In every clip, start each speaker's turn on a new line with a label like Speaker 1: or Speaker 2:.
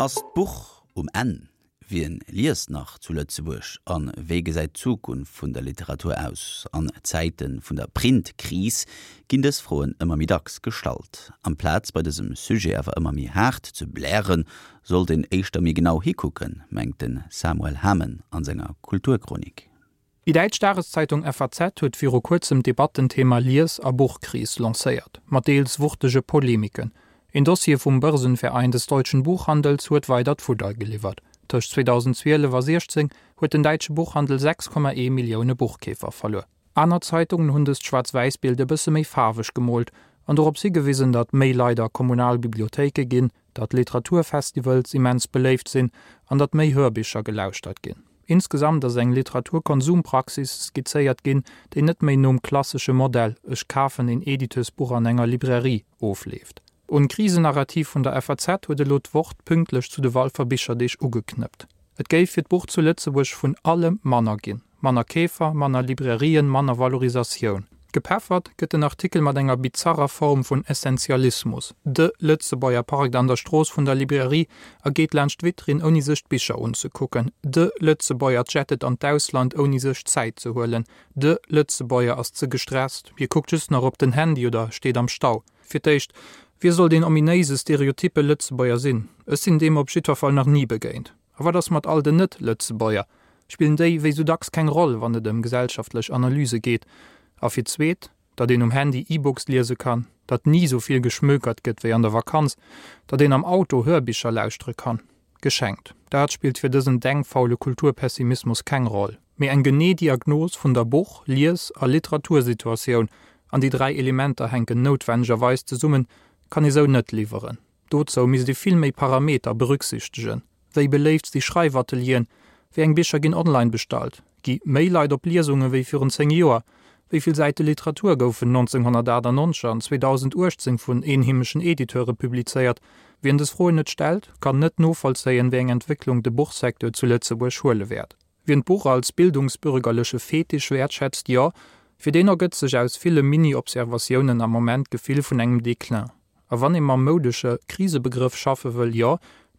Speaker 1: Ass d'Buch um Enn? Wien liest nach zu Lëtzebuerg a wéi gesäit d'Zukunft vun der Literatur aus? An Zäite vun der Printkris ginn dës Froen ëmmer méi dacks gestallt. Amplaz bei dësem Sujet awer ëmmer méi haart ze blären, sollt een éischter méi genau hikucken, mengt de Samuel Hamen an senger Kulturchronik.
Speaker 2: Déi däitsch Dageszeitung FAZ huet viru kuerzem d'Debattenthema Lies a Buchkris lancéiert, mat deels wuchtege Polemiken. Een Dossier vum Börsenverein des deutschen Buchhandels huet weidert Fudder geliwwert. Tëscht 2012 a 16 huet den däitsche Buchhandel 6,1 Millioune Buchkeefer verluer. Aner Zeitungen hunn dëst Schwaarz-Wäiss-Bild e bësse méi faarweg gemoolt an dorops higewisen, datt méi Leit a kommunal Bibliothéike ginn, datt Literaturfestivals immens beléift sinn an datt méi Hörbicher gelauschtert ginn. Insgesamt ass eng Literaturkonsumpraxis skizzéiert ginn, déi net méi nom klassesche Modell ech kafen een Editeursbuch an enger Librairie ofleeft. Un d'Krisenarrativ vun der FAZ huet elo d'Wort pünktlech zu de Walfer Bicherdeeg ugeknëppt. Et géif fir d'Buch zu Lëtzebuerg vun allem manner ginn. Manner Keefer, manner Librairien, manner Valorisatioun. Gepeffert gëtt den Artikel mat enger bizarrer Form vun Essentialismus, De Lëtzebuerger parkt an der Strooss vun der Librairie a geet laanscht d'Vitrinn ouni sech d'Bicher unzekucken. De Lëtzebuerger jettet an d'Ausland ouni sech Zäit ze huelen. De Lëtzebuerger ass ze gestresst, hie kuckt just nach op den Handy oder steet am Stau. Fir d'éischt, wie soll deen ominéise stereotyppe Lëtzebuerger sinn? Ech sinn deem op jiddwer Fall nach ni begéint. A wat ass mat all den Net-Lëtzebuerger? Spillen déi wéi sou dacks keng Roll, wann et ëm gesellschaftlech Analyse geet? A fir d'zweet, datt een um Handy E-Books liese kann, datt ni sou vill geschmökert gëtt wéi an der Vakanz, datt een am Auto Hörbicher lauschtere kann. Geschenkt. Dat spillt fir dësen denkfaule Kulturpessimismus keng Roll. Mee eng genee Diagnos vun der Buch-, Lies a Literatursituatioun, an déi 3 Elementer hänken noutwennegerweis zesummen, kann ee sou net liwweren. Dozou misst ee vill méi Parameter berücksichtegen, Wéi beléift si Schreifatelieren? Wéi eng Bicher ginn online bestallt? Gi méi Leit op Liesunge wéi virun 10 Joer? Wéi vill Säite Literatur goufen 1998 an 2018 vun eenheemeschen Editeure publizéiert? Wien dës Froen net stellt, kann net novollzéien, wéi eng Entwécklung de Buchsecteur zu Lëtzebuerg huele wäert. Wien d'Buch als bildungsbürgerleche Fetisch wäertschätzt, jo, fir deen ergëtt sech aus ville Mini-Observatiounen am Moment d'Gefill vun engem Déclin. A wann ee mam moudesche Krisebegrëff schaffe wëll, jo,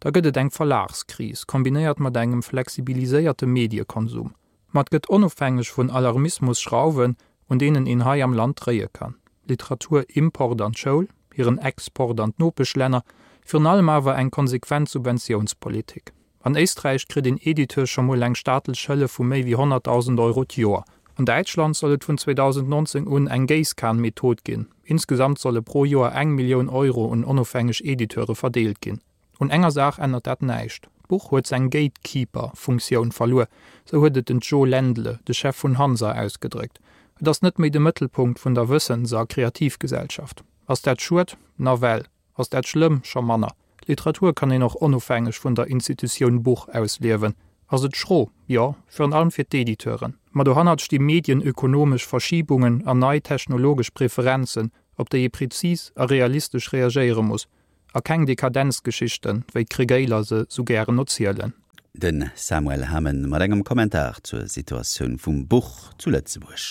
Speaker 2: da gëtt et eng Verlagskris, kombinéiert mat engem flexibiliséierte Mediekonsum. Ma et gëtt onofhängeg vun Alarmismus Schrauwen, un deenen een hei am Land dréie kann, Literaturimport an d'Schoul, hiren Export an d'Nopeschlänner, virun allem awer eng konsequent Subventiounspolitik. An Éisträich kritt een Editeur scho mol eng staatlech Hëllef vu méi wéi 100.000 Euro d'Joer. An Däitschland soll et vun 2019 un eng Géisskan-Method ginn. Insgesamt solle pro Joer eng Millioun Euro un onofhängeg Editeure verdeelt ginn. Un enger Saach ännert dat näischt, D'Buch huet seng Gatekeeper-Funktioun verluer, sou huet et den Joe Ländle, de Chef vun Hansa, ausgedréckt. Et ass net méi de Mëttelpunkt vun der Wëssens a Kreativgesellschaft. Ass dat schued? Nawell. Ass dat schlëmm? Scho manner. Literatur kann een och onofhängeg vun der Institutioun Buch ausliewen. Ass et schro? Jo, virun allem fir d'Editeuren. Ma dohannert sti medienökonomesch Verschibungen an nei technologesch Preferenzen, op déi ee prezis a realistesch reagéiere muss. A keng Dekadenzgeschichten, wéi d'Kregéiler se sou gären erzielen.
Speaker 1: De Samuel Hamen mat engem Kommentar zur Situatioun vum Buch zu Lëtzebuerg.